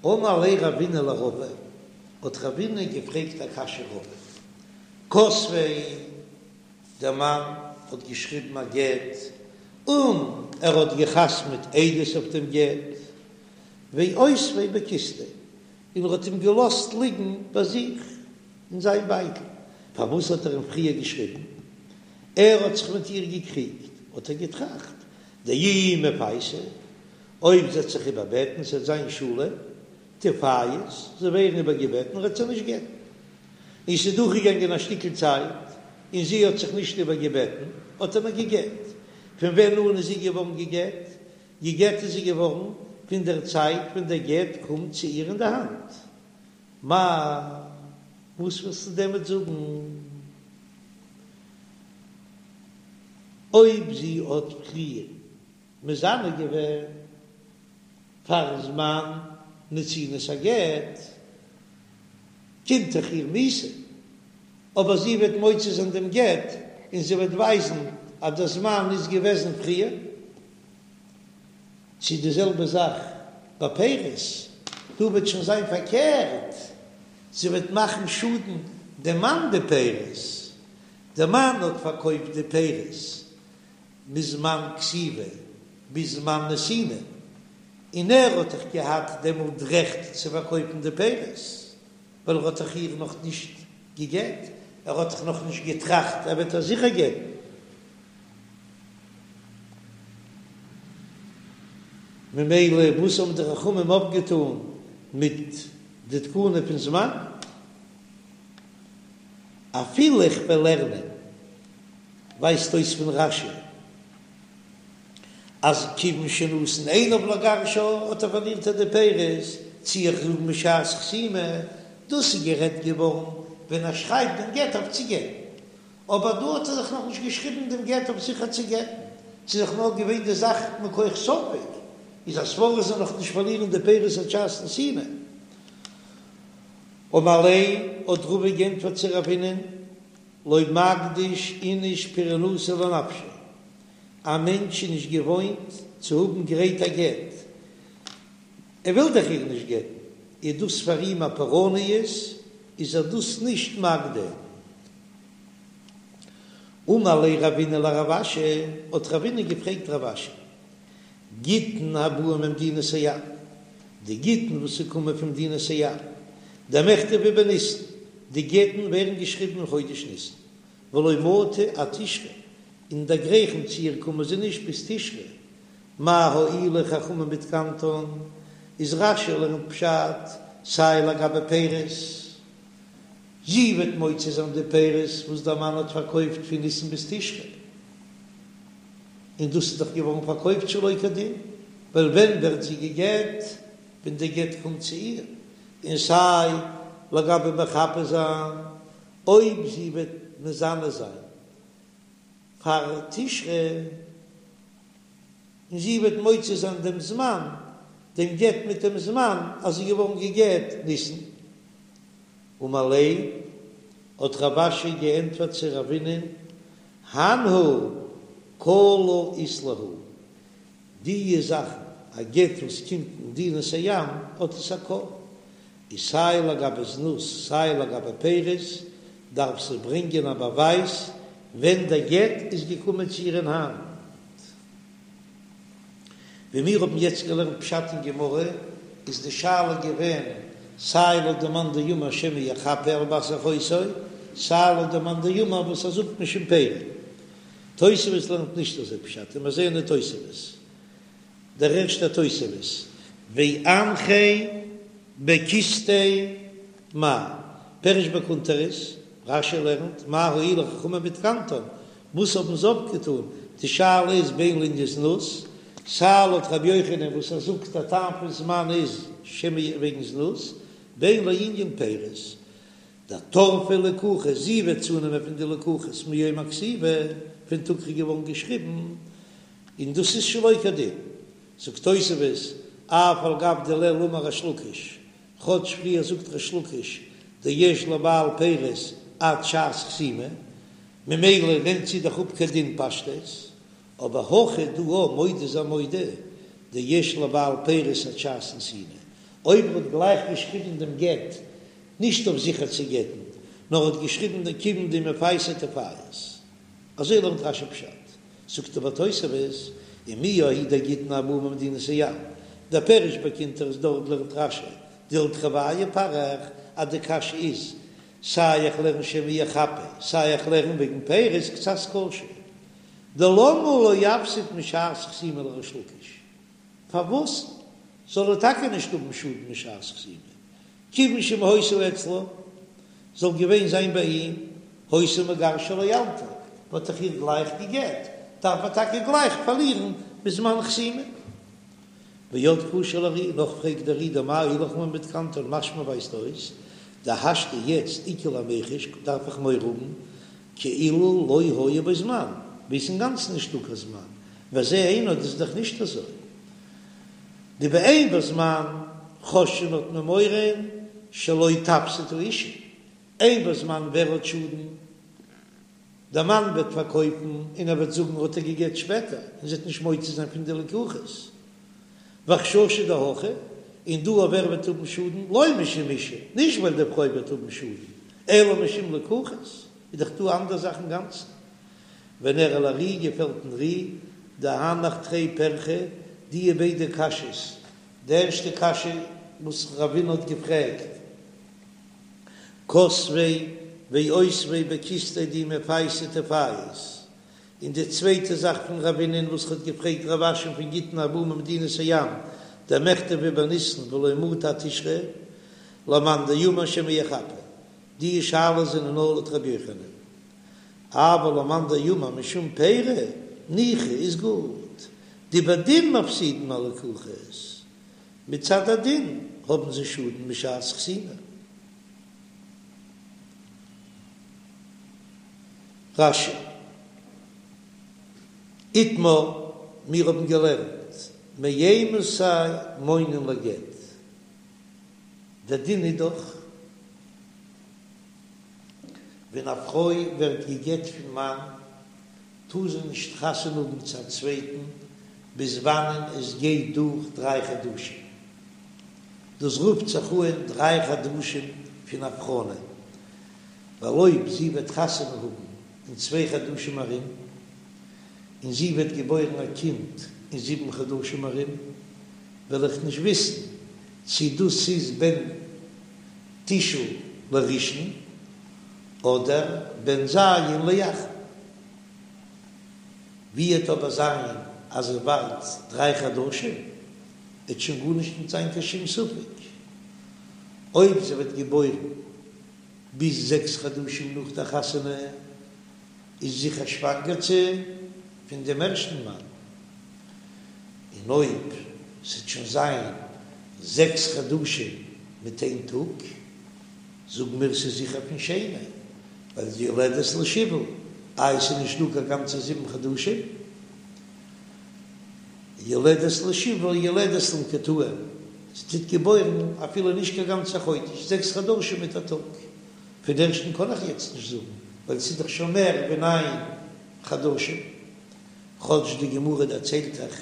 אמר ליה רבינא לרבא, האט רבינא געפרעגט א קשיא רבא, כתביה, דער מאן האט געשריבן א גט און ער האט געחתמעט עדות אויף דעם גט, ואותביה בכיסתיה, און ער האט אים געלאזט ליגן ביי זיך אין זיין בייטל. פארוואס האט ער אים פריער געשריבן? ער האט זיך מיט איר געקריגט, האט ער געטראכט, דאי מפייסה, אויב זי וועט זיך איבערבעטן, ס'וועט זיין שלום, תיפייס, זי ווערן איבערגעבעטן, וועט זי נישט גט'ן. און ס'איז דורכגעגאנגען א שטיקל צייט, און זי האט זיך נישט איבערגעבעטן, האט ער איר געגט. פון ווען אן איז זי געווארן געגט? געגט איז זי געווארן פון דער צייט ווען דער גט קומט צו איר אין די האנט. מאי, וואס ווילסטו דערמיט זאגן? אויב זי האט פריער מזנה געווען פארן זמן נתינת הגט, קומט דאך איר מיתה, אבער זי וועט מוציא זיין דעם גט און זי וועט ווייזן אז דער זמן איז געוועזן פריער. צו די זעלבע זאך ביי פירות, דא וועט שוין זיין פארקערט, זי וועט מאכן שאדן דעם מאן די פירות, דער מאן האט פארקויפט די פירות מזמן כתיבה ביז זמן נתינה, און ער האט דאך געהאט דעמאלט רעכט צו פארקויפן די פירות, ווייל ער האט דאך איר נאך נישט געגעט, ער האט דאך נאך נישט געטראכט ער וועט איר זיכער גט'ן. ממילא וואס האבן די חכמים אויפגעטאן מיט די תקנה פון זמן? אפילו איך וועל לערנען ווייזט אויס פון רש"י אז כיוון שנתן עיניו לגרשה האט ער פארלירט ער די פירות, צי איך זאג משעת חתימה, דאס איז גערעדט געווארן ווען ער שרייבט דעם גט אויף צו גט'ן, אבער דא האט ער דאך נאכנישט געשריבן דעם גט אויף זיכער צו גט'ן, ס'איז דאך נאר געווען די זאך מכח ספק, איז א סברא זאל נאך נישט פארלירן די פירות עד שעת נתינה. אמר ליה האט רבא גענטפערט צו רבינ'ען, לא מקדיש איניש פורענותא לנפשיה, א מענטש איז נישט געוואוינט צו האבן גרייט א גט, ער וויל דאך איר נישט גט'ן, איז דאס פאר אים א פורעניות, איז ער דאס נישט מקדים. אמר ליה רבינא לרב אשי, האט רבינא געפרעגט רב אשי, גיטין הבאין ממדינת הים, די גיטין וואס ס'קומען פון מדינת הים, דמיכתבי בניסן, די גט'ן ווערן געשריבן אין חודש ניסן, ולא מטו עד תשרי, און דערגרייכן צו איר קומען זיי נישט ביז תשרי, מה הועילו חכמים בתקנתן, איז רש"י לערנט פשט סיי לגבי פירות, זי וועט מוציא זיין די פירות וואס דער מאן האט פארקויפט פון ניסן ביז תשרי, און דאס איז דאך געווארן פארקויפט שלא כדין, ווייל ווען ווערט זי גע'גט? ווען די גט קומט צו איר, און סיי לגבי מחפה זיין, אויב זי וועט מזנה זיין פאר תשרי, און זי וועט מוציא זיין דעם זמן, דעם גט מיט דעם זמן אז זי איז געווארן גע'גט ניסן. אמר ליה, האט רב אשי געענטפערט צו רבינ'ען, הנהו קלא אית להו, די זאכן, א גט וואס קומט ממדינת הים האט עס א קול, איז סיי לגבי זנות סיי לגבי פירות דארף זי ברענגען א באווייז ווען דער גט איז געקומען צו איר אין האנט. ווי מיר האבן יעצט געלערנט פשט אין גמרא, איז די שאלה געווען סיי לויט די מאן דאמר שמא יחפה על בת אחותו, סיי לויט די מאן דאמר וואס ער זאגט משום פירי. תוספות לערנט נישט אזוי פשט, און מיר זעען אין תוספות, דער ערשטער תוספות, ואנחיה בכיסתיה מאי, פירש בקונטרס, רש"י לערנט, מה הועילו חכמים בתקנתן, וואס האבן זיי אפגעטאן, די שאלה איז בין לענין זנות, סיי לויט רבי יוחנן וואס ער זאגט א טעם פון זמן איז שמא וועגן זנות, בין לענין פירות, דטרפה לקוחות, זי וועט צונעמען פון די לקוחות מיום הכתיבה, פון טאג ס'איז געווארן געשריבן, און דאס איז שלא כדין. זאגט תוספות, אף על גב דלעיל אמר ריש לקיש, כאטש פריער זאגט ריש לקיש דיש לבעל פירות עד שעת חתימה, ממילא נעמט זי דאך אפ כדין פשטות, אבער הכא דא מודה איז ער מודה דיש לבעל פירות עד שעת נתינה. אויב ער האט גלייך געשריבן דעם גט נישט אויף זיכער צו גט'ן, נאר האט געשריבן דעם כיוון דמפייסה תפייס. אזוי לערנט רש"י פשט. זאגט אבער תוספות, ומיהו ההוא דגיטין הבאים ממדינת הים, דער פירוש בקונטרס דארט לערנט רש"י דלתרוייהו פריך אז די קשיא איז סיי איך לערן שמא יחפה סיי איך לערן וועגן פירות קצת קשה דלמה לא יפסיד משעת חתימה לריש לקיש פארוואס זאל ער טאקע נישט האבן שאדן משעת חתימה כיוון שאם היתה אצלו זאל געווען זיין ביי אים היתה מגרשה לאלתר וואלט איך איר גלייך געגעט דארף ער טאקע גלייך פארלירן בזמן חתימה. ועוד קשה לר"י, נאך פרעגט דער ר"י דמאי הולך לן בתקנתן משמע ווייזט אויס דהשתא יעצט איכא למיחש דארף איך מורא האבן כאילו לא היה בו זמן ווי עס אינגאנצן נישטא קיין זמן וזה אינו דאס איז דאך נישט אזוי דבאין בו זמן חוששין האט מען מורא שלא תפסיד האשה אין בו זמן ווער האט שאדן דער מאן וועט פארקויפן און ער וועט זאגן האט ער געגעט שפעטער און זי וועט נישט מוציא זיין פון די לקוחות וחששא דהכא און דא אויף ווער וועט האבן שאדן לא משום אשה נישט ווייל די פרוי וועט האבן שאדן אלא משום לקוחות איז דאך דא אנדער זאך אינגאנצן ונראה לר"י געפעלט דעם ר"י דהנך תרי פרחי דיע ביידע קשיות די ערשטע קשיא וואס רבינא האט געפרעגט כתביה ואותביה בכיסתיה דאי מפייסה תפייס, און די צווייטע זאך פון רבינא'ן וואס האט געפרעגט רב אשי'ן פון גיטין הבאים ממדינת הים דמיכתבי בניסן ולא מטו עד תשרי למאן דאמר שמא יחפה, די שאלות זענען נאר לויט רבי יוחנן, אבל למאן דאמר משום פירי ניחא איז גוט, דבדין מפסידין הלקוחות, מצד הדין האבן זיי שאדן משעת חתימה. רש"י, איתמר, מיר האבן געלערנט מאימתי מונין לגט, דער דין איז דאך ווען א פרוי ווערט גע'גט פון מאן טאר זי נישט חתונה האבן צו א צווייטן ביז וואנען עס גייט דורך דריי חדשים, דאס רופט זיך אן דריי חדשים פון הבחנה, ווייל אויב זי וועט חתונה האבן אין צוויי חדשים ארום, און זי וועט געבוירן א קינד אין זיבן חדשים ארום, וועל איך נישט וויסן צי דאס איז בן תשעה לראשון אדער בן ז' לאחרון. ווי עט אבער זיין אז ער ווארט דריי חדשים, עט שוין גארנישט נישט זיין קיין שום ספק אויב זי וועט געבוירן ביז זעקס חדשים נאך דער חתונה, איז זיכער שוואנגערט זי פון דעם ערשטן מאן, און אויב ס'עט שוין זיין זעקס חדשים מיט איין טאג, זאגן מיר ס'איז זיכער פון שני, ווייל די יולדת לשבעה, איי ס'איז נישט דא קיין גאנצע זיבן חדשים, יולדת לשבעה יולדת למקוטעים, זי טוט געבוירן אפילו נישט קיין גאנצע חודש, זעקס חדשים מיט א טאג, פון ערשטן קען איך יעצט נישט זאגן, ווייל ס'איז דאך שוין מער ווי ניין חדשים, כאטש די גמרא דערציילט דאך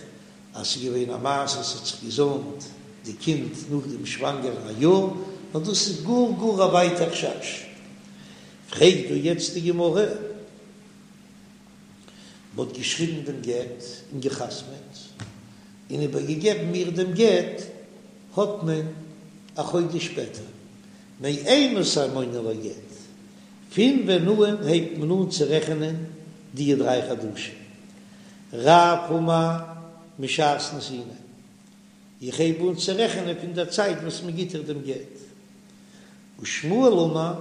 אז ס'איז געווען א מעשה ס'האט זיך געזוימט די קינד נאך דעם שוואנגערן א יאר, נאר דאס איז גאר גאר א ווייטע חשש. פרעגט דא יעצט די גמרא, מ'האט געשריבן דעם גט און גע'חתמ'עט און איבערגעגעבן מיר דעם גט האט מען א חודש שפעטער, מאימתי מונין לגט, פון ווען אן הייבט מען אן צו רעכענען די דריי חדשים? רב אמר משעת נתינה, איך הייב אן צו רעכענען פון דער צייט וואס מען גיט איר דעם גט. ושמואל אמר,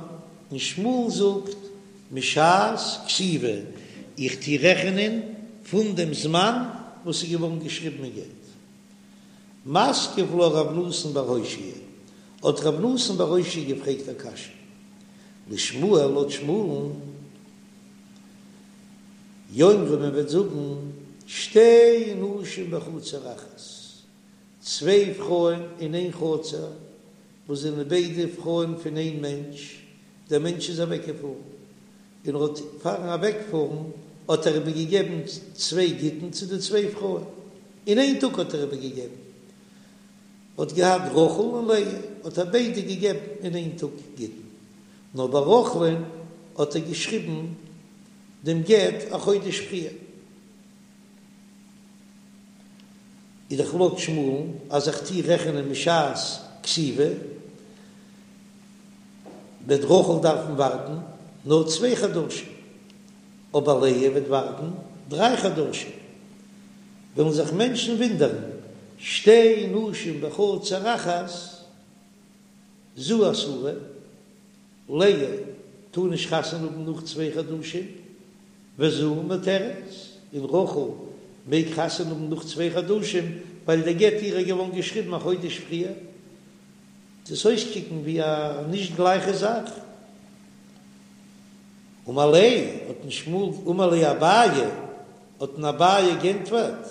און שמואל זאגט, משעת כתיבה, איך טו רעכענען פון דעם זמן וואס איז געווארן געשריבן אין גט. מתקיף לה רב נתן בר אושעיא, האט רב נתן בר אושעיא געפרעגט א קשיא, לשמואל לויט שמואל'ן, יאמרו מען וועט זאגן שתי נשים בחצר אחת, צוויי פרויען אין איין חצר, וואס זענען ביידע פרויען פון איין מענטש, דער מענטש איז אוועקגעפארן, און ער האט פארן אוועקפארן האט ער איבערגעגעבן צוויי גיטין צו די צוויי פרויען, אין איין טאג האט ער איבערגעגעבן. האט געהאט רחל און לאה, האט ער ביידע געגעבן אין איין טאג גיטין, נאר ביי רחל'ן האט ער געשריבן דעם גט א חודש פריער. איז דאך לויט שמואל'ן אז איך טוה רעכענען משעת כתיבה, וועט רחל דארפן ווארטן נאר צוויי חדשים, אבער לאה וועט ווארטן דריי חדשים. וועלן זיך מענטשן ווינדערן, שתי נשים בחצר אחת, זו אסורה, לאה טאר נישט חתונה האבן נאך צוויי חדשים, וזו מותרת, און רחל מעג חתונה האבן נאך צוויי חדשים, ווייל דער גט אירע איז געווארן געשריבן א חודש פריער. דאס אויסקוקן ווי א נישט גלייכע זאך. אמר ליה, האט אים שמואל, אמר ליה אביי, האט אים אביי גענטפערט,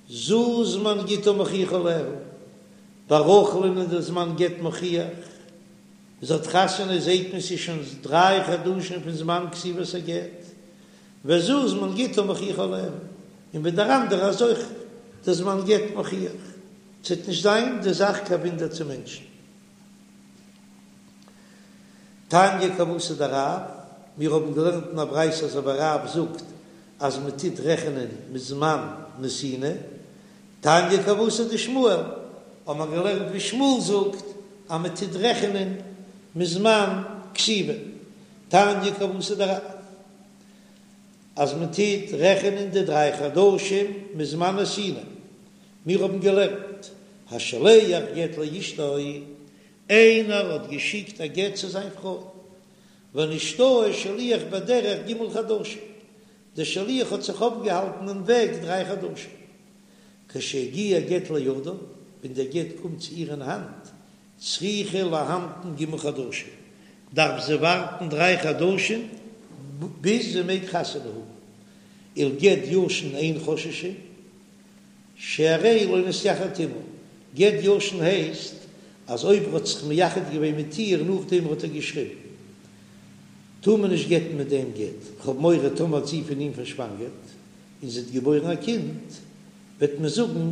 זו זמן גיטה מוכיח עליה, ביי רחל'ן איז דער זמן גט מוכיח, זי האט חתונה זעהט מען ס'איז שוין דריי חדשים פון זמן כתיבת הגט, וזו זמן גיטה מוכיח עליה, און ביי דער אנדערע איז אויך דער זמן גט מוכיח, ס'וועט נישט זיין די זאך קיין וואונדער צו מענטשן. תניא כוותיה דרב, מיר האבן געלערנט אין א ברייתא אזוי ווי רב זאגט אז מען טוט רעכענען מזמן נתינה, תניא כוותיה דשמואל, האבן מיר געלערנט ווי שמואל זאגט אז מען טוט רעכענען מזמן כתיבה, תניא כוותיה דרב, אז מען טוט רעכענען די דריי חדשים מזמן נתינה, מיר האבן געלערנט, השולח גט לאשתו, איינער האט געשיקט א גט צו זיין פרוי, ונשתהה שליח בדרך ג' חדשים, דער שליח האט זיך אויפגעהאלטן אין וועג דריי חדשים, כשהגיע גט לידה, ווען דער גט קומט צו איר אין האנט, צריכה להמתין ג' חדשים, דארף זי ווארטן דריי חדשים ביז זי מעג חתונה האבן, ולגט ישן אין חוששין, שהרי לא נתייחד עמה, גט ישן הייסט אז אויב ער האט זיך מייחד געווען מיט איר נאכדעם האט ער געשריבן, טאר מען נישט גט'ן מיט דעם גט, כ'האב מורא טאמער האט זי פון אים פארשוואנגערט און זי האט געבוירן א קינד, וועט מען זאגן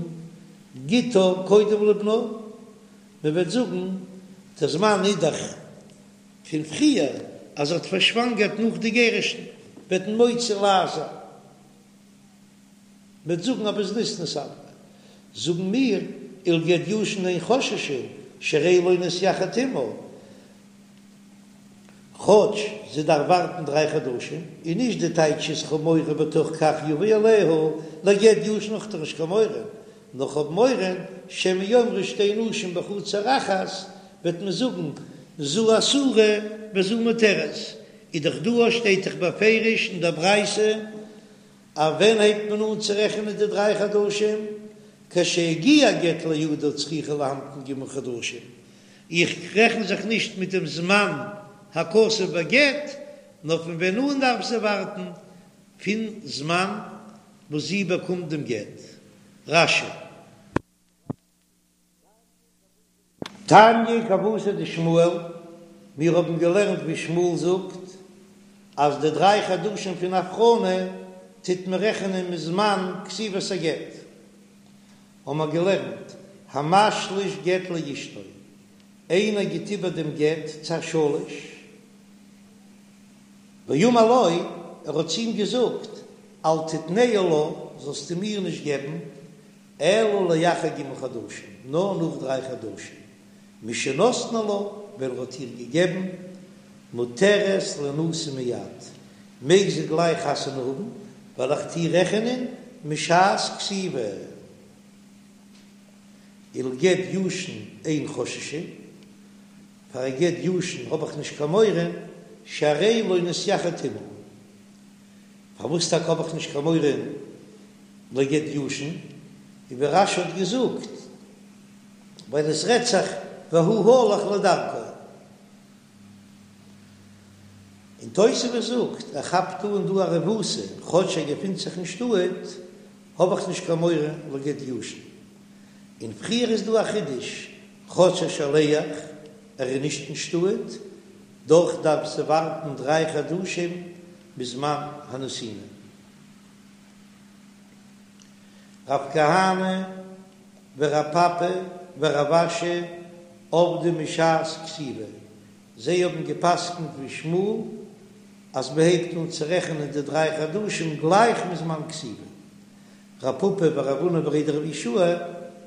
גיטה קודם לבנה, מען וועט זאגן דער זמן איז דאך פון פריער אז זי האט פארשוואנגערט נאך די גירושין, וועט מען מוציא לעז זיין. מ'וועט זאגן אז בזנות נתעברה, זאגן מיר ולגט ישן אין חוששין שהרי לא נתייחד עמה, כאטש זי דארף ווארטן דריי חדשים, און נישט די טייטש איז כ'האב מורא בתוך כך יבוא עליה, לגט ישן האב איך דאך נישט קיין מורא, נאר כ'האב מורא שמא יאמרו שתי נשים בחצר אחת, וועט מען זאגן זו אסורה וזו מותרת, איז דאך דא שטייט דאך בפירוש אין דער ברייתא אז ווען הייבט מען אן צו רעכענען די דריי חדשים? כשהגיע גט לידה צריכה להמתין ג' חדשים, איך רעכן זיך נישט מיט דעם זמן הכתוב בגט, נאר פון ווען אן דארף זי ווארטן? פון זמן וואס זי באקומט דעם גט. רש"י. תניא כוותיה דשמואל, מיר האבן געלערנט ווי שמואל זאגט אז די דריי חדשים פון הבחנה טוט מען רעכענען מזמן כתיבת הגט, האבן מיר געלערנט המשליש גט לאשתו, איינער גיט איבער דעם גט צו א שליש, ואמר לו, ער האט צו אים געזאגט, אל תתנהו לה, זאלסטו מיר נישט געבן, אלא לאחר ג' חדשים, נאר נאך דריי חדשים, משנתנו לה, ווען ער האט איר געגעבן, מותרת לינשא מיד, מעג זי גלייך חתונה האבן, ווייל איך טוה רעכענען משעת כתיבה. ולגט ישן אין חוששין, פאר א גט ישן האב איך נישט קיין מורא, שהרי לא נתייחד עמה. פארוואס טאקע האב איך נישט קיין מורא לגט ישן, און ווי רש"י האט געזאגט, ווייל עס רעדט זיך והוא הלך לדרכו. און תוספות זאגט, ער כאפט אן דא א רבותא, כאטש ער געפינט זיך אין שטאט, האב איך נישט קיין מורא לגט ישן. און פריער איז דא א חידוש, כאטש א שליח, ער איז נישט אין שטאט, דאך דארף זי ווארטן דריי חדשים מזמן הנתינה. רב כהנא ורב פפא. ורב אשי עבדי משעת כתיבה, זיי האבן געפסקנט ווי שמואל אז מען הייבט אן צו רעכענען די דריי חדשים גלייך מזמן כתיבה. רב פפא ורב הונא בריה דרב יהושע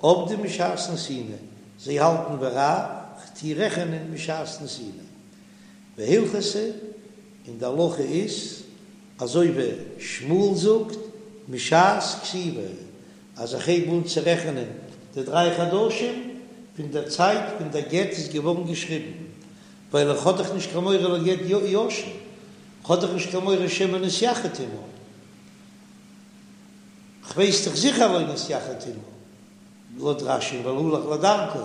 עבדי משעת נתינה, זיי האלטן ווי רב, כ'טו רעכענען משעת נתינה. והלכתא, און די הלכה איז אזוי ווי שמואל זאגט משעת כתיבה, אז איך הייב אן צו רעכענען די דריי חדשים פון דער צייט ווען דער גט איז געווארן געשריבן, ווייל איך האב דאך נישט קיין מורא לגט ישן, כ'האב דאך נישט קיין מורא שמא נתייחד עמה, כ'ווייס דאך זיכער לא נתייחד עמה, לויט רש"י ווייל הלך לדרכו,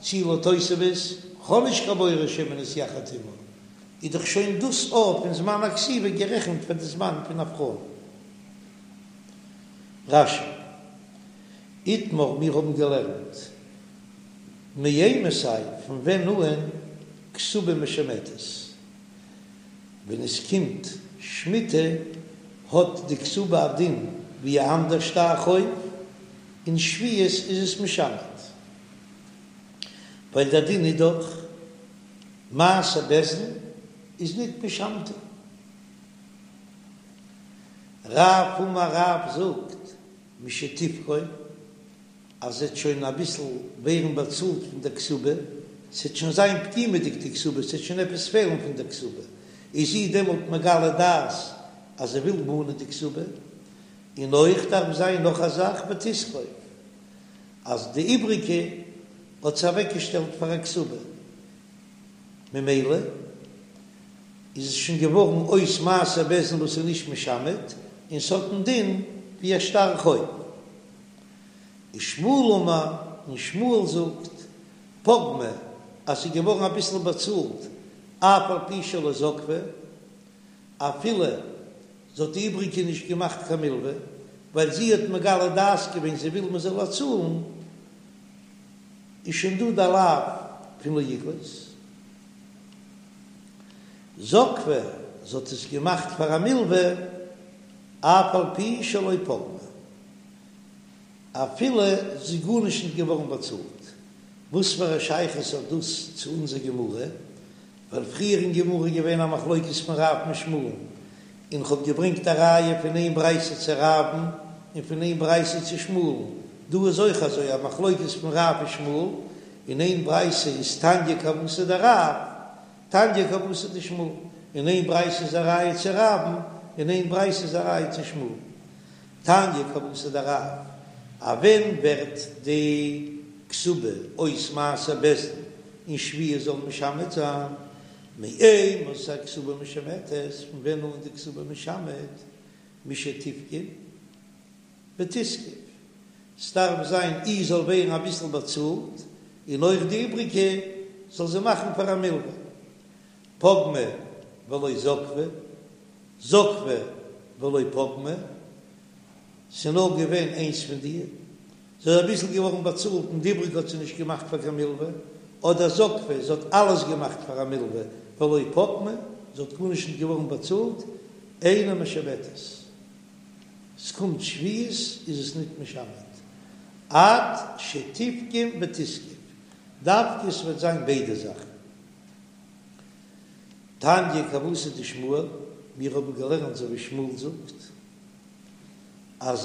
צי לויט תוספות, כ'האב נישט קיין מורא שמא נתייחד עמה, איז דאך שוין דאס אויך פון זמן הכתיבה גערעכנט פאר די זמן פון הבחנה. רש"י, איתמר מיר האבן געלערנט מאימתי פון ווען אן כתובה משמטת, ווען עס קומט שמיטה האט די כתובה א דין ווי א אנדער שטר חוב, אין שביעית איז עס משמט, ווייל דער דין איז דאך מעשה בית דין איז ניט משמטין. רב אמר רב זאגט משתפגום אז ס'עט שוין אביסל ווערן באצאלט פון דער כתובה, ס'עט שוין זיין פגימה'דיג די כתובה, ס'עט שוין עפעס פעלן פון דער כתובה, איז זי דעמאלט מגלה דעת אז זי וויל מאנען די כתובה, און אויך דארף זיין נאך א זאך ותזקוף אז די איבריגע האט זי אוועקגעשטעלט פאר א כתובה, ממילא איז עס שוין געווארן אויס מעשה בית דין וואס איז נישט משמט, און ס'האט א דין ווי א שטר חוב. ושמואל אמר, און שמואל זאגט, פגמה, אז ס'איז געווארן אביסל באצאלט, אף על פי שלא זקפה, אפילו זי האט די איבריגע נישט געמאכט קיין מלווה, ווייל זי האט מגלה דעת געווען זי וויל מ'זאל איר צאלן, איז שוין דא די לאו פון לא יגלוש. זקפה, זי האט עס געמאכט פאר א מלווה, אף על פי שלא פגמה, אפילו ס'איז גארנישט נישט געווארן באצאלט. וואס פאר א שייכות האט דאס צו אונזער גמרא? ווייל פריער אין גמרא איז געווען א מחלוקת פון רב מיט שמואל'ן, און כ'האב געברענגט א ראיה פון איין ברייתא צו רב'ן און פון איין ברייתא צו שמואל'ן, דא איז אויך אזוי א מחלוקת פון רב און שמואל, אין איין ברייתא איז תניא כוותיה דרב, תניא כוותיה דשמואל, אין איין ברייתא איז א ראיה צו רב'ן, אין איין ברייתא איז א ראיה צו שמואל. תניא כוותיה דרב, אז ווען ווערט די כתובה אויס מעשה בית דין אין שביעית זאל משמט זיין, מאימתי כתובה משמטת, פון ווען אן די כתובה משמט, משתפגום ותזקוף, ס'דארף זיין אי זאל ווערן אביסל באצאלט, און אויך די איבריגע זאל זי מאכן פאר א מלווה, פגמה ולא זקפה, זקפה ולא פגמה, ס'נאר געווען איינס פון די, זי איז אביסל געווארן באצאלט און די איבריגע האט זי נישט געמאכט פאר קיין מלווה, אדער זקפה, זי האט אלעס געמאכט פאר א מלווה ולא פגמה, זי האט גארנישט נישט געווארן באצאלט, אינה משמטת, ס'קומט שביעית איז עס ניט משמט, עד שתפגום ותזקוף, דווקא ס'וועט זיין ביידע זאכן. תניא כוותיה דשמואל, מיר האבן געלערנט אזוי ווי שמואל זאגט, אז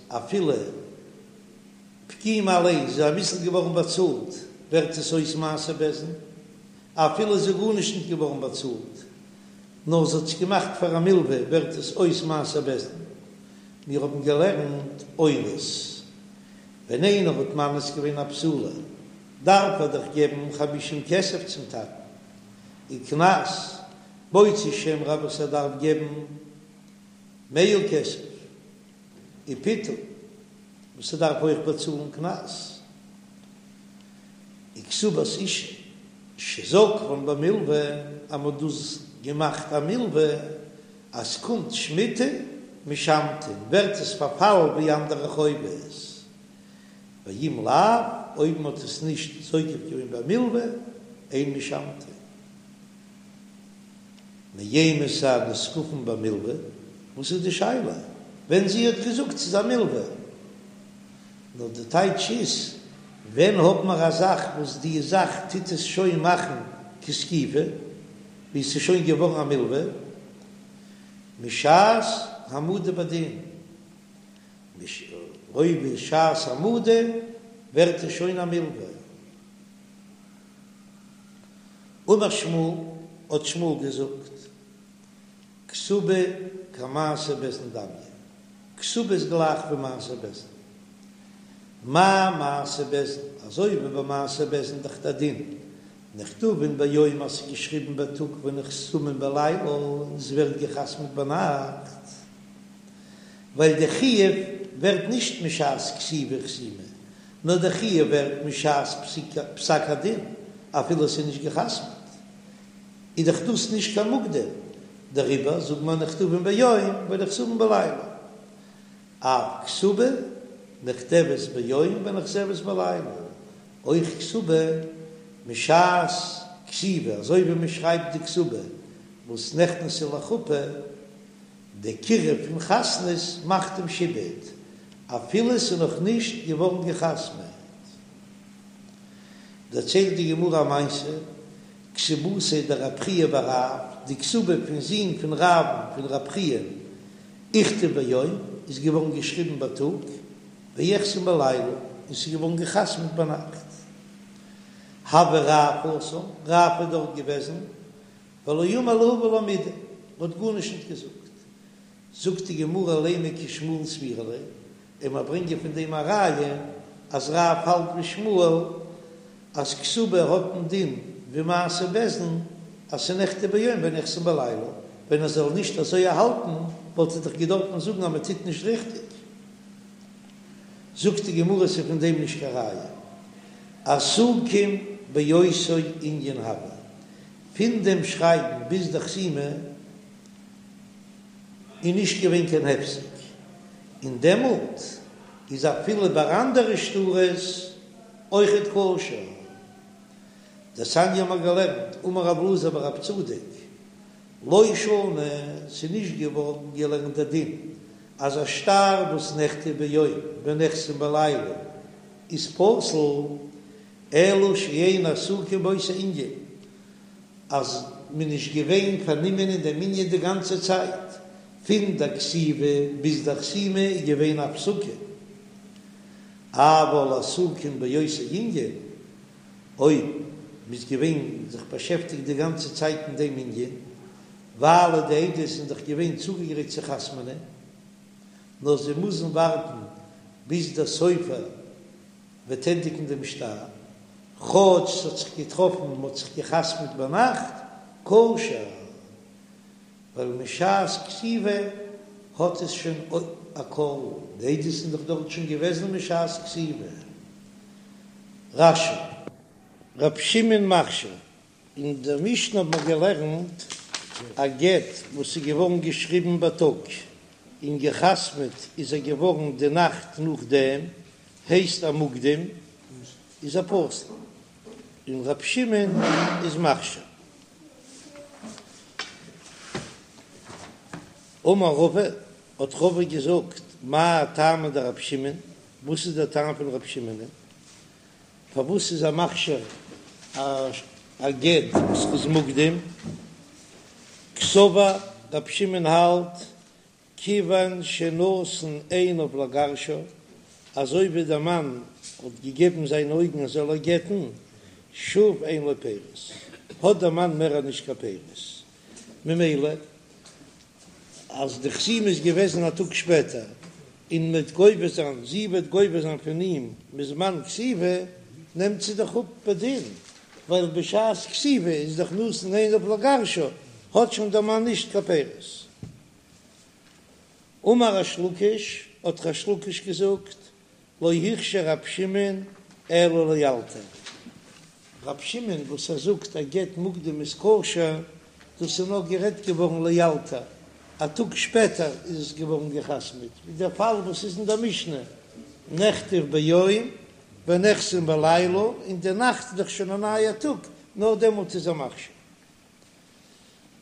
אפילו פגימה אליין איז אביסל געווארן באצאלט ווערט עס אויס מעשה בית דין, אפילו איז גארנישט נישט געווארן באצאלט נאר זי האט עס געמאכט פאר א מלווה ווערט עס אויס מעשה בית דין. מיר האבן געלערנט אונס, ווען איינער האט מאנס געווען א בתולה דארף ער דאך געבן חמישים כסף צום טאטן, און קנס מוציא שם רע וואס ער דארף געבן מאה כסף, און פיתוי וואס ער דארף אויך באצאלן קנס, און כתובת אשה שזקפן במלוה אז מ'האט דאס געמאכט א מלוה אז ס'קומט שמיטה משמטין ווערט עס פארפאלן ווי אנדערע חובות, ואם לאו, אויב מ'האט עס נישט זוקף געווען במלוה, אין משמטין. מאימתי נזקפין במלוה, וואס איז די שאלה ווען זי האט געזאגט ס'איז א מלוה? נאר די טייטש איז. ווען האט מען א זאך וואס די זאך טוט עס שוין מאכן כזקיפה, ווי עס איז שוין געווארן א מלווה, משעת העמדה בדין, אויב איז שעת העמדה ווערט עס שוין א מלווה. אמר שמואל, האט שמואל געזאגט, כתובה כמעשה בית דין דמיא, כתובה איז גלייך ווי מעשה בית דין. מה מעשה בית דין, אזוי ווי ביי מעשה בית דין דאך דער דין, נכתבין ביום אז ס'איז געשריבן בייטאג ונחתמין בלילה און ס'ווערט געחתמ'ט ביינאכט, ווייל די חיוב ווערט נישט משעת כתיבה וחתימה, נאר די חיוב ווערט משעת פסק הדין אפילו ס'איז נישט געחתמ'ט. איז דאך דאס נישט קיין מוקדם, דעריבער זאגט מען נכתבין ביום ונחתמין בלילה, אף כתובה נכתבת ביום ונחתמת בלילה, אויך כתובה משעת כתיבה, אזוי ווי מען שרייבט די כתובה וואס נכנסה לחופה, די קירוב פון חתנות מאכט דעם שעבוד אפילו עס איז נאך נישט געווארן געחתמעט. דערציילט די גמרא א מעשה, כתובתיה דרב חייא בר רב, די כתובה פון זון פון רב'ן פון רב חייא, איכתב ביום, איז געווארן געשריבן בייטאג, ואיחתם בלילה, און ס'איז געווארן געחתמ'ט ביינאכט. הוה רב התם, רב איז דארט געוועזן, ולא אמר להו ולא מידי, האט גארנישט נישט געזאגט. זאגט די גמרא לימא כשמואל סבירא ליה, און מיר ברענגען פון דעם א ראיה אז רב האלט ווי שמואל אז כתובה האט דעם דין ווי מעשה בית דין אז ס'נכתב ביום ונחתם בלילה, ווען ער זאל נישט אזוי האלטן וואלט ער דאך געדארפן זאגן אז מען טוט נישט ריכטיג. זאגט די גמרא ס'איז פון דעם נישט קיין ראיה, עסוקים באותו ענין הוו, פון דעם שרייבן ביז די חתימה איז נישט געווען קיין הפסק, און דעמאלט איז אפילו ביי אנדערע שטרות אויכעט כשר. דתניא האבן מיר געלערנט, אמר רב אלעזר בר רב צדוק, לא שנו, ס'איז נישט געווארן געלערנט דער דין אז א שטר וואס נכתב ביום ונחתם בלילה איז פסול, אלא שאין עסוקים באותו ענין, אז מ'איז נישט געווען פארנומען אין דעם ענין די גאנצע צייט, פון דער כתיבה ביז דער חתימה איז געווען א הפסקה, אבל עסוקים באותו ענין, אויב מ'איז געווען זיך באשעפטיגט די גאנצע צייט אין דעם ענין, ווייל די עדות זענען דאך געווען צוגעגרייט צו חתמ'נען, נאר זיי מוזן ווארטן ביז דער סופר וועט ענדיגן דעם שטר, כאטש ס'האט זיך געטראפן מ'האט זיך געחתמ'ט ביינאכט, כשר, ווייל משעת כתיבה האט עס שוין א קול, די עדות זענען דאך דארט שוין געוועזן משעת כתיבה. רש"י. רב שמעון מכשיר. אין דער משנה האט מען געלערנט א גט וואס איז געווארן געשריבן בייטאג און געחתמעט איז ער געווארן די נאכט נאכדעם, הייסט א מוקדם איז ער פסול, און רב שמעון איז מכשיר. אמר רבא, האט רבא געזאגט, מאי טעמא דרב שמעון, וואס איז דער טעם פון רב שמעונ'ען? פארוואס איז ער מכשיר א גט וואס איז מוקדם? קסבר רב שמעון האלט כיוון שנתן עיניו לגרשה, אזוי ווי דער מאן האט געגעבן זיינע אויגן ער זאל איר גט'ן, שוב אין לו פירות, האט דער מאן מער נישט קיין פירות, ממילא אז די חתימה איז געוועזן א טאג שפעטער, און מ'וועט גובה זיין, זי וועט גובה זיין פון אים מזמן כתיבה, נעמט זי דאך אפ בדין, ווייל בשעת כתיבה איז דאך נתן עיניו לגרשה, האט שוין דער מאן נישט קיין פירות. אמר ריש לקיש, האט ריש לקיש געזאגט, לא הכשיר רב שמעון אלא לאלתר. רב שמעון וואס ער זאגט א גט מוקדם איז כשר, דאס איז נאר גערעדט געווארן לאלתר, א טאג שפעטער איז עס געווארן געחתמעט, ווי דער פאל וואס איז אין דער משנה, נכתב ביום ונחתם בלילה, און די נאכט איז דאך שוין א נייער טאג, נאר דעמאלט איז ער מכשיר.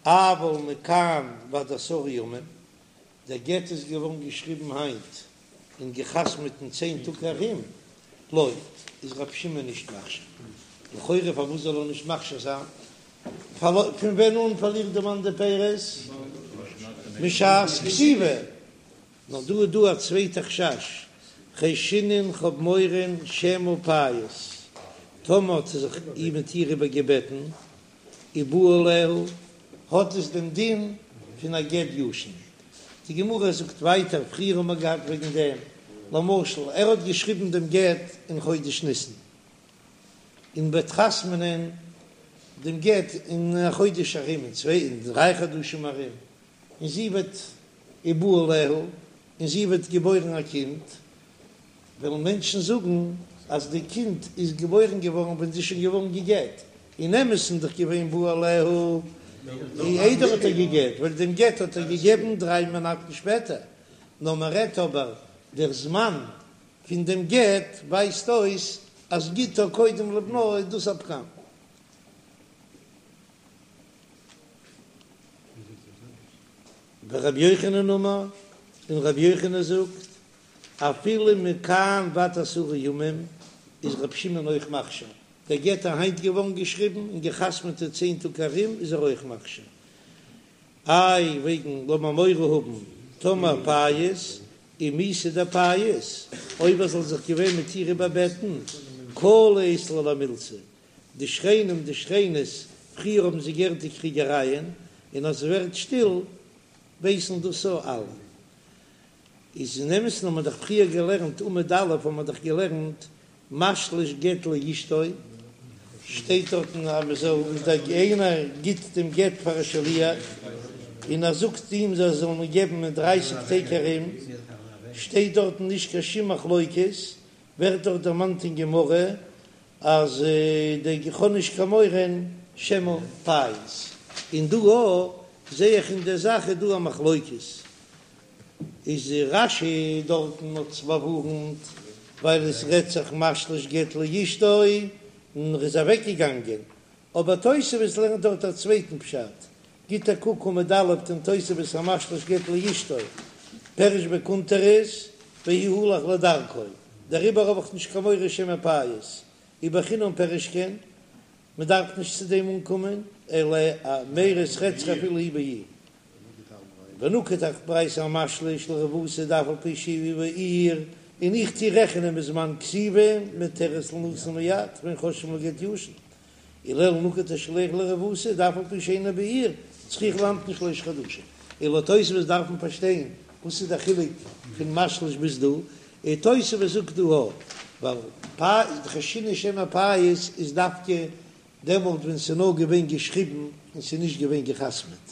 אבל מכאן ועד עשרה ימים, דער גט איז געווארן געשריבן היינט און געחתמעט אין צען טאג ארום. לא, איז רבי שמעון נישט מכשיר. לכאורה פארוואס זאל ער נישט מכשיר זיין? פון ווען אן פארלירט די מאן די פירות? משעת כתיבה. נאר דא איז דא א צווייטע חשש, חיישינן כ'האב מורא שמא פייס, טאמער האט ער זיך איר מיט איר איבערגעבעטן, ובא עליה, האט עס דעם דין פון א גט ישן. די גמרא זאגט ווייטער, פריער האבן מיר געהאט וועגן דעם, למשל ער האט געשריבן דעם גט אין חודש ניסן, און וועט חתמ'נען דעם גט אין א חודש ארום, אין צוויי אין דריי חדשים ארום, און זי וועט ובא עליה, און זי וועט געבוירן א קינד, וועלן מענטשן זאגן אז די קינד איז געבוירן געווארן ווען זי איז שוין געווארן גע'גט, אין אמת'ן איז דאך געווען בא עליה איידער האט ער גע'גט, ווייל דעם גט האט ער געגעבן דריי מאנאטן שפעטער, נאר מען רעדט אבער דער זמן פון דעם גט ווייזט אויס אז גיטה קודם לבנה איז דאס א פגם. ורבי יוחנן אמר, און רבי יוחנן זאגט, אפילו מכאן ועד עשרה ימים איז רבי שמעון אויך מכשיר, דער גט איז היינט געווארן געשריבן און גע'חתמ'עט אין צען טאג ארום איז ער אויך מכשיר. איי וועגן לאמיר מורא האבן טאמער פייס ומיתא דפייס, אויב ער זאל זיך געווען מיט איר איבערבעטן, קלא אית ליה למילתא, די שכנים די שכנות פריער האבן זיי געהערט די קריגערייען און אז ס'ווערט שטיל ווייסן דאס אויך אלע. איז אין אמת'ן האט מען דאך פריער געלערנט עמוד א' האט מען דאך געלערנט משליש גט לאשתו, שטייט דארטן אז מען זאל אז דער איינער גיט דעם גט פאר א שליח און ער זאגט אים זיי זאלן אים געבן אין דרייסיג טעג ארום, שטייט דארטן נישט קיין שום מחלוקת, ווערט דארט דערמאנט אין גמרא אז די איך האב נישט קיין מורא שמא פייס, און דא אויך זעה איך אין דער זאך איז דא א מחלוקת, איז רש"י דארטן האט עס באווארנט ווייל עס רעדט זיך משליש גט לאשתו און ער איז אוועק געגאנגען, אבער תוספות לערנט דארט א צווייטן פשט, גיט א קוק עמוד א' אין תוספות המשליש גט לאשתו פירש בקונטרס והוא הלך לדרכו, דעריבער האב איך נישט קיין מורא שמא פייס, ובחינם פירש כן, מען דארף נישט צו דעם אנקומען, אלא מיירי ס'רעדט זיך אפילו הוא בעיר. ונקט ברייתא המשליש לרבותא דאף על פי שהוא בעיר, און איך טוה רעכענען מזמן כתיבה מותרת לינשא מיד ואין חוששין לגט ישן, ולעיל נקט השליח לרבותא דאף על פי שאינו בעיר צריכה להמתין שלושה חדשים. און לויט תוספות דארף מען פארשטיין וואס איז דער חילוק פון משליש ביז דא, און תוספות זאגט דא א ווייל חיישינן שמא פייס איז דווקא דעמאלט ווען ס'איז נאר געווען געשריבן און ס'איז נישט געווען גע'חתמ'עט,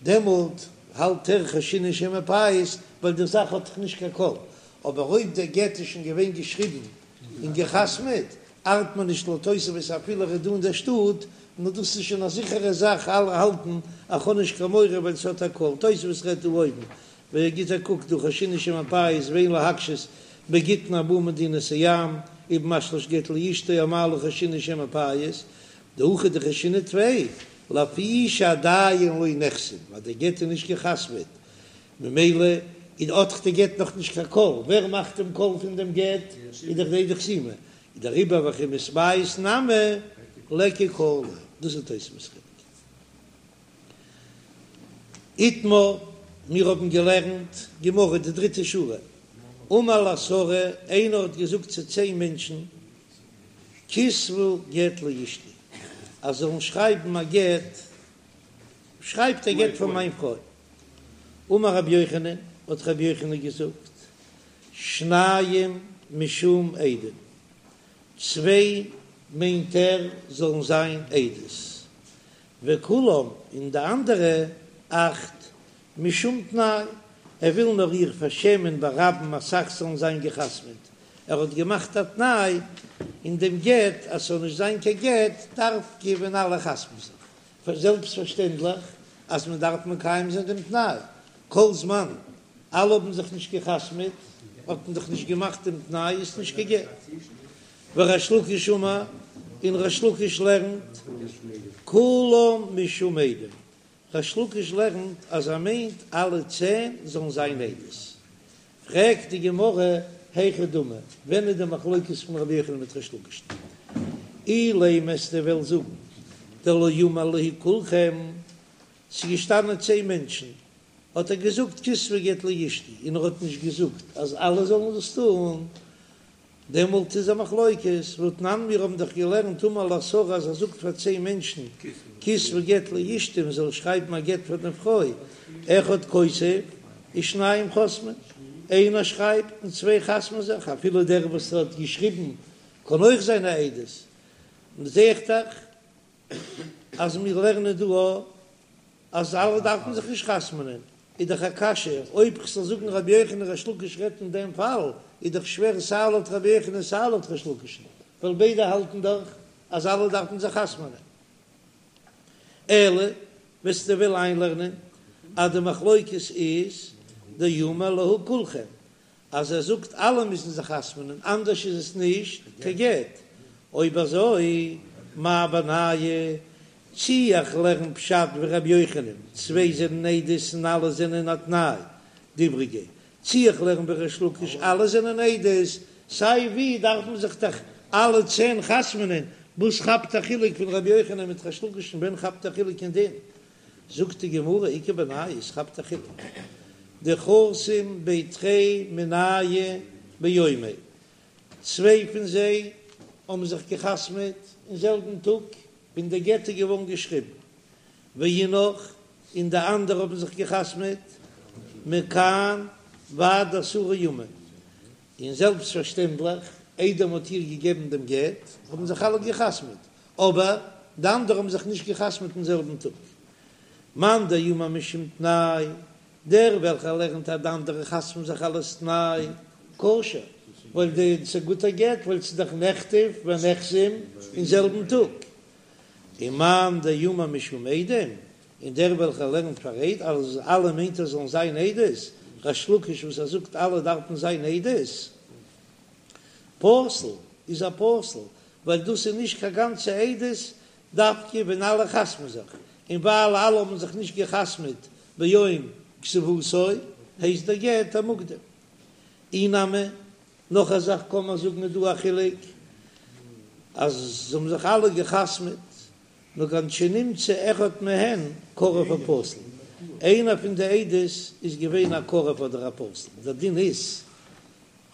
דעמאלט האלט ער חיישינן שמא פייס ווייל די זאך האט דאך נישט קיין קול, אבער אויב דער גט איז שוין געווען געשריבן און גע'חתמ'עט, ארט מיר נישט לויט תוספות אפילו ער איז דא אין דער שטאט, נאר דאס איז שוין א זיכערע זאך אלע האלטן אז כ'האב נישט קיין מורא ווייל ס'האט א קול, תוספות רעדט דא אויבן, ווער גיט א קוק דא חיישינן שמא פייס ואין להקשות בגיטין הבאין ממדינת הים ובמשליש גט לאשתו אמאי לא חיישינן שמא פייס דהכא דחיישינן טפי לפי שעדיין לא נחתם ווייל דער גט איז נישט גע'חתמ'עט ממילא איז האט דאך די גט נאך נישט קיין קול, ווער מאכט דעם קול פון דעם גט? איז דאך די עדי חתימה, איז דעריבער וכי מתפייס נמי ליכא קלא, דאס איז תוספות חילוק. איתמר, מיר האבן געלערנט גמרא די דריטע שורה, אמר לעשרה, איינער האט געזאגט צו צען מענטשן, כתבו גט לאשתי, אז זאלן שרייבן א גט, שרייבט א גט פאר מיין פרוי. אמר רבי יוחנן, האט רבי יוחנן געזאגט, שניים משום עדים, צוויי מיינט ער זאלן זיין עדות, וכולם און די אנדערע אכט משום תנאי, ער וויל נאר איר פארשעמען ברבים אסאך זאלן זיין גע'חתמ'עט, ער האט געמאכט א תנאי אין דעם גט אז ס'זאל נישט זיין קיין גט דווקא ווען אלע חתמ'ן זיך, זעלבסטפארשטענדליך אז מען דארף מקיים זיין דעם תנאי, כל זמן אלע האבן זיך נישט גע'חתמ'עט האט מען דאך נישט געמאכט דעם תנאי, איז נישט קיין גט. וריש לקיש אמר, און ריש לקיש לערנט כולם משום עדים, ריש לקיש לערנט אז ער מיינט אלע צען זאלן זיין עדות. פרעגט די גמרא. היכי דמי, ווען איז די מחלוקת פון רבי יוחנן מיט ריש לקיש'ן? אילימא וועסטו וועלן זאגן דלא אמר להו כולכם, ס'איז געשטאנען צען מענטשן, האט ער געזאגט כתבו גט לאשתי, און ער האט נישט געזאגט אז אלע זאלן דאס טון, דעמאלט איז א מחלוקת, והתנן מיר האבן דאך געלערנט אמר לעשרה אז ער זאגט פאר צען מענטשן כתבו גט לאשתי מען זאל שרייבן א גט פאר די פרוי, אחד כותב ושניים חותמין, איינער שרייבט און צוויי חתמ'ן זיך, אפילו דער וואס האט געשריבן קען אויך זיין א עדות, זע איך דאך אז מיר לערנען דא אז אלע דארפן זיך נישט חתמ'נען, איז דאך א קשיא, אויב כ'זאל זאגן רבי יוחנן ריש לקיש רעדט אין דעם פאל, איז דאך שווער סיי לויט רבי יוחנן סיי לויט ריש לקיש'ן, ווייל ביידע האלטן דאך אז אלע דארפן זיך חתמ'נען. אלא וועסטו וועלן איינלערנען אז די מחלוקת איז דאמר להו כולכם, אז ער זאגט אלע מוזן זיך חתמ'נען אנדערש איז עס נישט קיין גט, אויב אזוי מאי בינייהו, צי איך לערן פשט ווי ר' יוחנן, צוויי זענען עדות און אלע זענען א תנאי, די איבריגע, צי איך לערן ווי ריש לקיש אלע זענען עדות, סיי ווי דארף מען זיך דאך אלע צען חתמ'נען, וואס כאפט א חילוק פון ר' יוחנן מיט ריש לקיש'ן ווען כאפט א חילוק אין דין? זאגט די גמרא איכא בינייהו עס כאפט א חילוק דחתים בי תרי מינייהו ביומיה, צוויי פון זיי האבן זיך געחתמעט אין זעלבן טאג ווען די גט איז געווארן געשריבן, ואינך און די אנדערע האבן זיך געחתמעט מכאן ועד עשרה ימים, און זעלבסט פארשטענדליך איידער מען האט איר געגעבן דעם גט האבן זיך אלע געחתמעט, אבער די אנדערע האבן זיך נישט געחתמעט אין זעלבן טאג. מאן דאמר משום תנאי, דער וועלכער לערנט אז די אנדערע חתמ'ן זיך אלס תנאי, כשר, ווייל די ס'איז א גוטער גט, ווייל ס'איז דאך נכתב ונחתם אין זעלבן טאג. און מאן דאמר משום עדים, און דער וועלכער לערנט פאר עד אז אלע מיינט ער זאלן זיין עדות, ריש לקיש וואס ער זאגט אלע דארפן זיין עדות, פסול איז א פסול, ווייל דאס איז נישט קיין גאנצע עדות דווקא ווען אלע חתמ'ן זיך, און ווייל אלע האבן זיך נישט געחתמ'עט ביום כתיבתו הייסט דער גט א מוקדם. אי נמי, נאך א זאך קען מען זאגן איז דא א חילוק אז זיי האבן זיך אלע געחתמ'עט נאר כגון שנמצא אחד מהן קרוב או פסול, איינער פון די עדות איז געווען א קרוב אדער א פסול, דער דין איז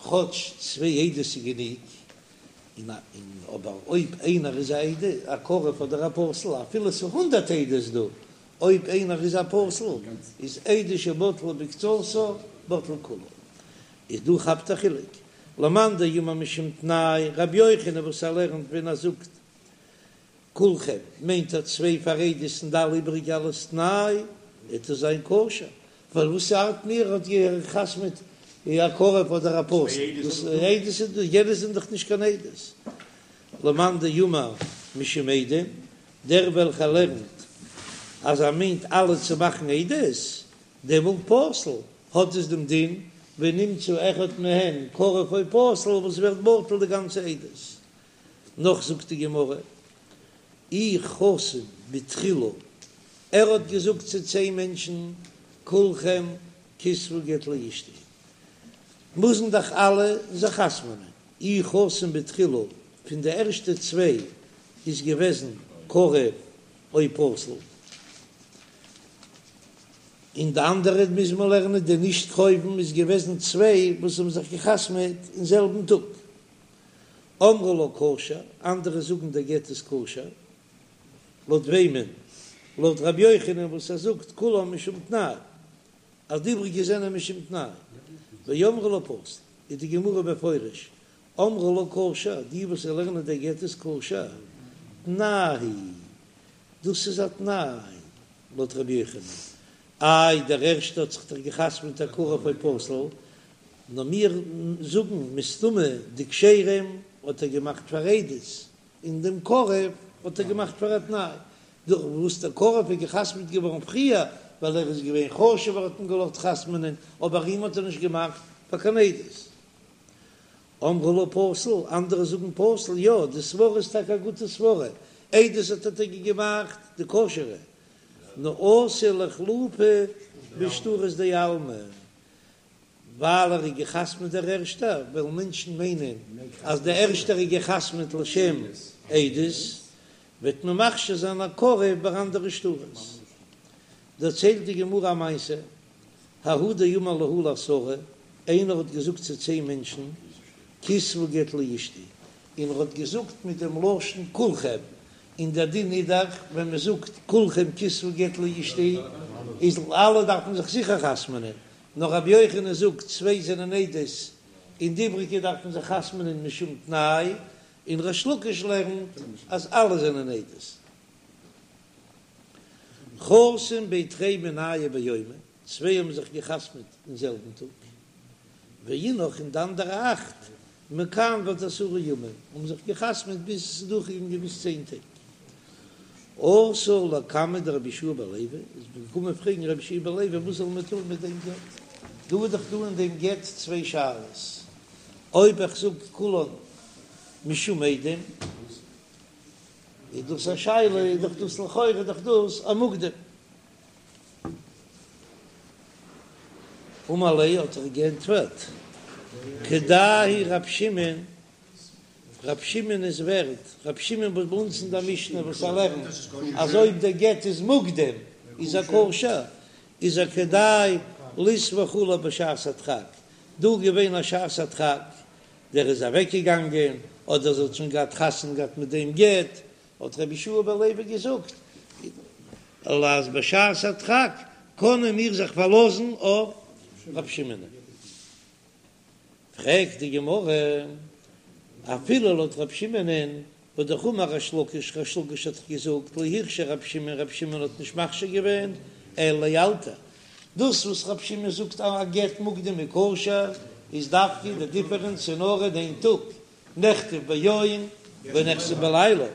כאטש צוויי עדות איז גענוג, און אבער אויב איינער איז א עד א קרוב אדער א פסול, אפילו ס'איז הונדערט עדות דא, אויב איינער איז א פסול, איז עדות שבטלה מקצתה בטלה כולה. איז דא כאפט א חילוק, למאן דאמר משום תנאי, רבי יוחנן וואס ער לערנט ווען ער זאגט כולכם מיינט ער צוויי פאר עדות און די אלע איבריגע אלס תנאי, וועט עס זיין כשר, ווייל וואס ארט מיר האט געחתמעט א קרוב אדער א פסול, דאס עדות איז דא, יענע זענען דאך נישט קיין עדות. למאן דאמר משום עדים, דער וועלכער לערנט אז ער מיינט אלע צו מאכן עדות, דעמאלט פסול, האט עס דעם דין ונמצא אחד מהן קרוב או פסול וואס ווערט בטל די גאנצע עדות. נאך זאגט די גמרא, אי חתים בתחילה, ער האט געזאגט צו צען מענטשן, כולכם כתבו גט לאשתי, מוזן דאך אלע זיך חתמ'נען, אי חתים בתחילה, פון די ערשטע צוויי איז געוועזן קרוב או פסול, און די אנדערע מוז מען לערנען די נישט קרובים איז געוועזן צוויי וואס האבן זיך געחתמ'עט אין זעלבן טאג. אמרי לה כשר, אנדערע זאגן דער גט איז כשר, לויט וועמען? לויט רבי יוחנן וואס ער זאגט כולם משום תנאי, אז די איבריגע זענען משום תנאי, ואמרי לה פסול, איז די גמרא מפרש, אמרי לה כשר, די וואס לערנען דער גט איז כשר, תנאי הוא, דאס איז א תנאי, לויט רבי יוחנן, איי דער ערשטער האט זיך דאך געחתמ'ט א קרוב או פסול, נאר מיר זאגן מסתמא די כשרים האט ער געמאכט פאר עדות, און דעם קרוב האט ער געמאכט פאר א תנאי, דורך וואס דער קרוב איז געחתמ'ט געווארן פריער, ווייל ער איז געווען חשוב'ער האט מען געלאזט חתמ'נען, אבער אים האט ער נישט געמאכט פאר קיין עדות. אמרי לה פסול, אנדערע זאגן פסול, יא, די סברא איז טאקע א גוטע סברא, עדות האט ער טאקע געמאכט די כשר'ע, נאר אתי לאיחלופי בשטרות דעלמא. ווייל ער איז גע'חתמ'עט דער ערשטער, וועלן מענטשן מיינען אז דער ערשטער איז גע'חתמ'עט לשם עדות, וועט מען מכשיר זיין א קרוב ביי אנדערע שטרות. דערציילט די גמרא א מעשה, ההוא דאמר להו לעשרה, איינער האט געזאגט צו צען מענטשן, כתבו גט לאשתי, און ער האט געזאגט מיט דעם לשון כולכם, און דער דין איז דאך ווען מען זאגט כולכם כתבו גט לאשתי איז אלע דארפן זיך זיכער חתמ'נען, נאר רבי יוחנן זאגט צוויי זענען עדות און די איבריגע דארפן זיך חתמ'נען משום תנאי, און ריש לקיש לערנט אז אלע זענען עדות. חתום בי תרי מינייהו ביומא, צוויי האבן זיך געחתמ'ט אין זעלבן טאג, ואינך און די אנדערע אכט מכאן ועד עשרה ימים האבן זיך געחתמ'ט ביז עס איז דורכגעגאנגען ביז צען טעג. אתו לקמיה דרבי יהושע בן לוי, איז מען געקומען פרעגן רבי יהושע בן לוי וואס זאל מען טון מיט דעם גט, דא איז דאך דא אין דעם גט צוויי שאלות, אויב איך זאג כולן משום עדים איז דאס א שאלה, איז דאך דאס לכאורה איז דאך דאס א מוקדם. אמר ליה האט ער געענטפערט, כדאי הוא רב שמעון, רב שמעון איז ווערד, רב שמעון וואס ביי אונז אין דער משנה וואס ער לערנט אז אויב דער גט איז מוקדם איז ער כשר, איז ער כדאי לסמוך עליו בשעת הדחק, דא געווען א שעת הדחק, דער איז אוועק געגאנגען, אדער זי האט שוין געהאט חתונה געהאט מיט דעם גט, האט רבי יהושע בן לוי געזאגט, אז בשעת הדחק קענען מיר זיך פארלאזן אויף רב שמעון. פרעגט די גמרא, אפילו לויט רב שמעונ'ען, והאמר ריש לקיש, ריש לקיש האט דאך געזאגט, לא הכשיר רב שמעון, רב שמעון האט נישט מכשיר געווען, אלא לאלתר. דאס וואס רב שמעון זאגט אז א גט מוקדם איז כשר, איז דווקא די דיפערענץ איז נאר אין איין טאג, נכתב ביום ונחתם בלילה,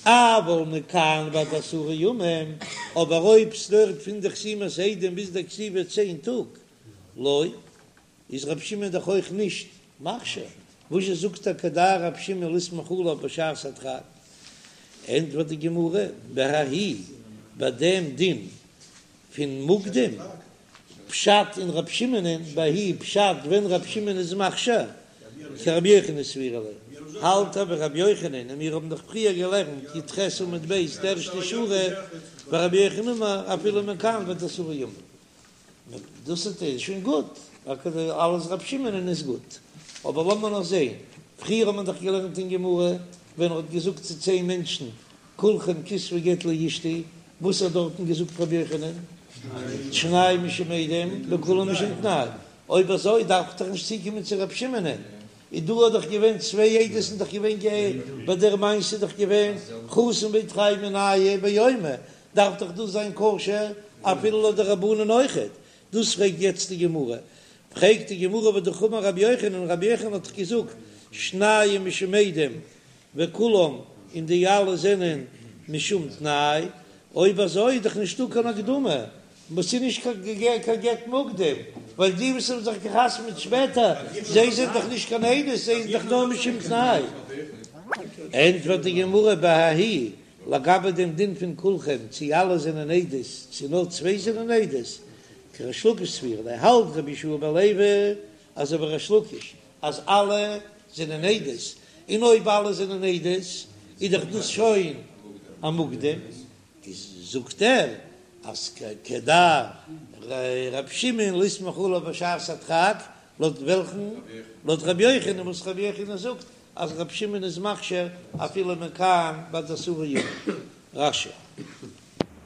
אבל מכאן ועד עשרה ימים, אבער אויב ס'דויערט פון די חתימת עדים ביז די כתיבה צען טאג, לא, איז רב שמעון דאך אויך נישט מכשיר, וואזשע זאגט ער כדאי רב שמעון לסמוך עליו בשעת הדחק? ענטפערט די גמרא, בההיא, ביי דעם דין פון מוקדם, פשט אין רב שמעונ'ען בההיא פשט ווען רב שמעון איז מכשיר כרבי יוחנן סבירא ליה, האלט ער ווי רבי יוחנן און מיר האבן דאך פריער געלערנט י"ח עמוד ב' די ערשטע שורה ורבי יוחנן אמר אפילו מכאן ועד עשרה ימים דאס איז שוין גוט אלעס רב שמעונ'ען איז גוט אבער לאמיר נאר זעהן פריער האט מען דאך געלערנט אין גמרא ווען ער האט געזאגט צו צען מענטשן כולכם כתבו גט לאשתי, וואס האט דארטן געזאגט רבי יוחנן? שנים משום עדים וכולם משום תנאי, אויב אזוי דארף איך דאך נישט צוקומען צו רבי שמעונ'ען, איז דא האט דאך געווען צוויי עדות און דאך געווען גע ביי דער מעשה איז דאך געווען חתום בי תרי מינייהו ביומא, דארף דאך דאס זיין כשר אפילו לויט די רבנן אויכעט, דאס פרעגט יעצט די גמרא, פרעגט די גמרא והאמר רבי יוחנן, רבי יוחנן האט דאך געזאגט שנים משום עדים וכולם און די אלע זענען משום תנאי, אויב אזוי איז דאך נישטא קיין הקדמה, וואס איז נישט קיין גט מוקדם, ווייל די וואס האבן זיך געחתמ'עט שפעטער, זיי זענען דאך נישט קיין עדות, זיי זענען דאך נאר משום תנאי. ענטפערט די גמרא בההיא, לגבי דעם דין פון כולכם, צי אלע זענען עדות, צי נאר צוויי זענען עדות, כריש לקיש סבירא ליה, האלט רבי יהושע בן לוי אזוי ווי ריש לקיש, אז אלע זענען עדות, און אויב אלע זענען עדות איז דאך דאס שוין א מוקדם, איז זאגט ער אז כדאי ר' שמעון לסמוך עליו בשעת הדחק, לויט וועלכן? לויט ר' יוחנן וואס ר' יוחנן זאגט אז ר' שמעון איז מכשיר אפילו מכאן ועד עשרה ימים. רש"י.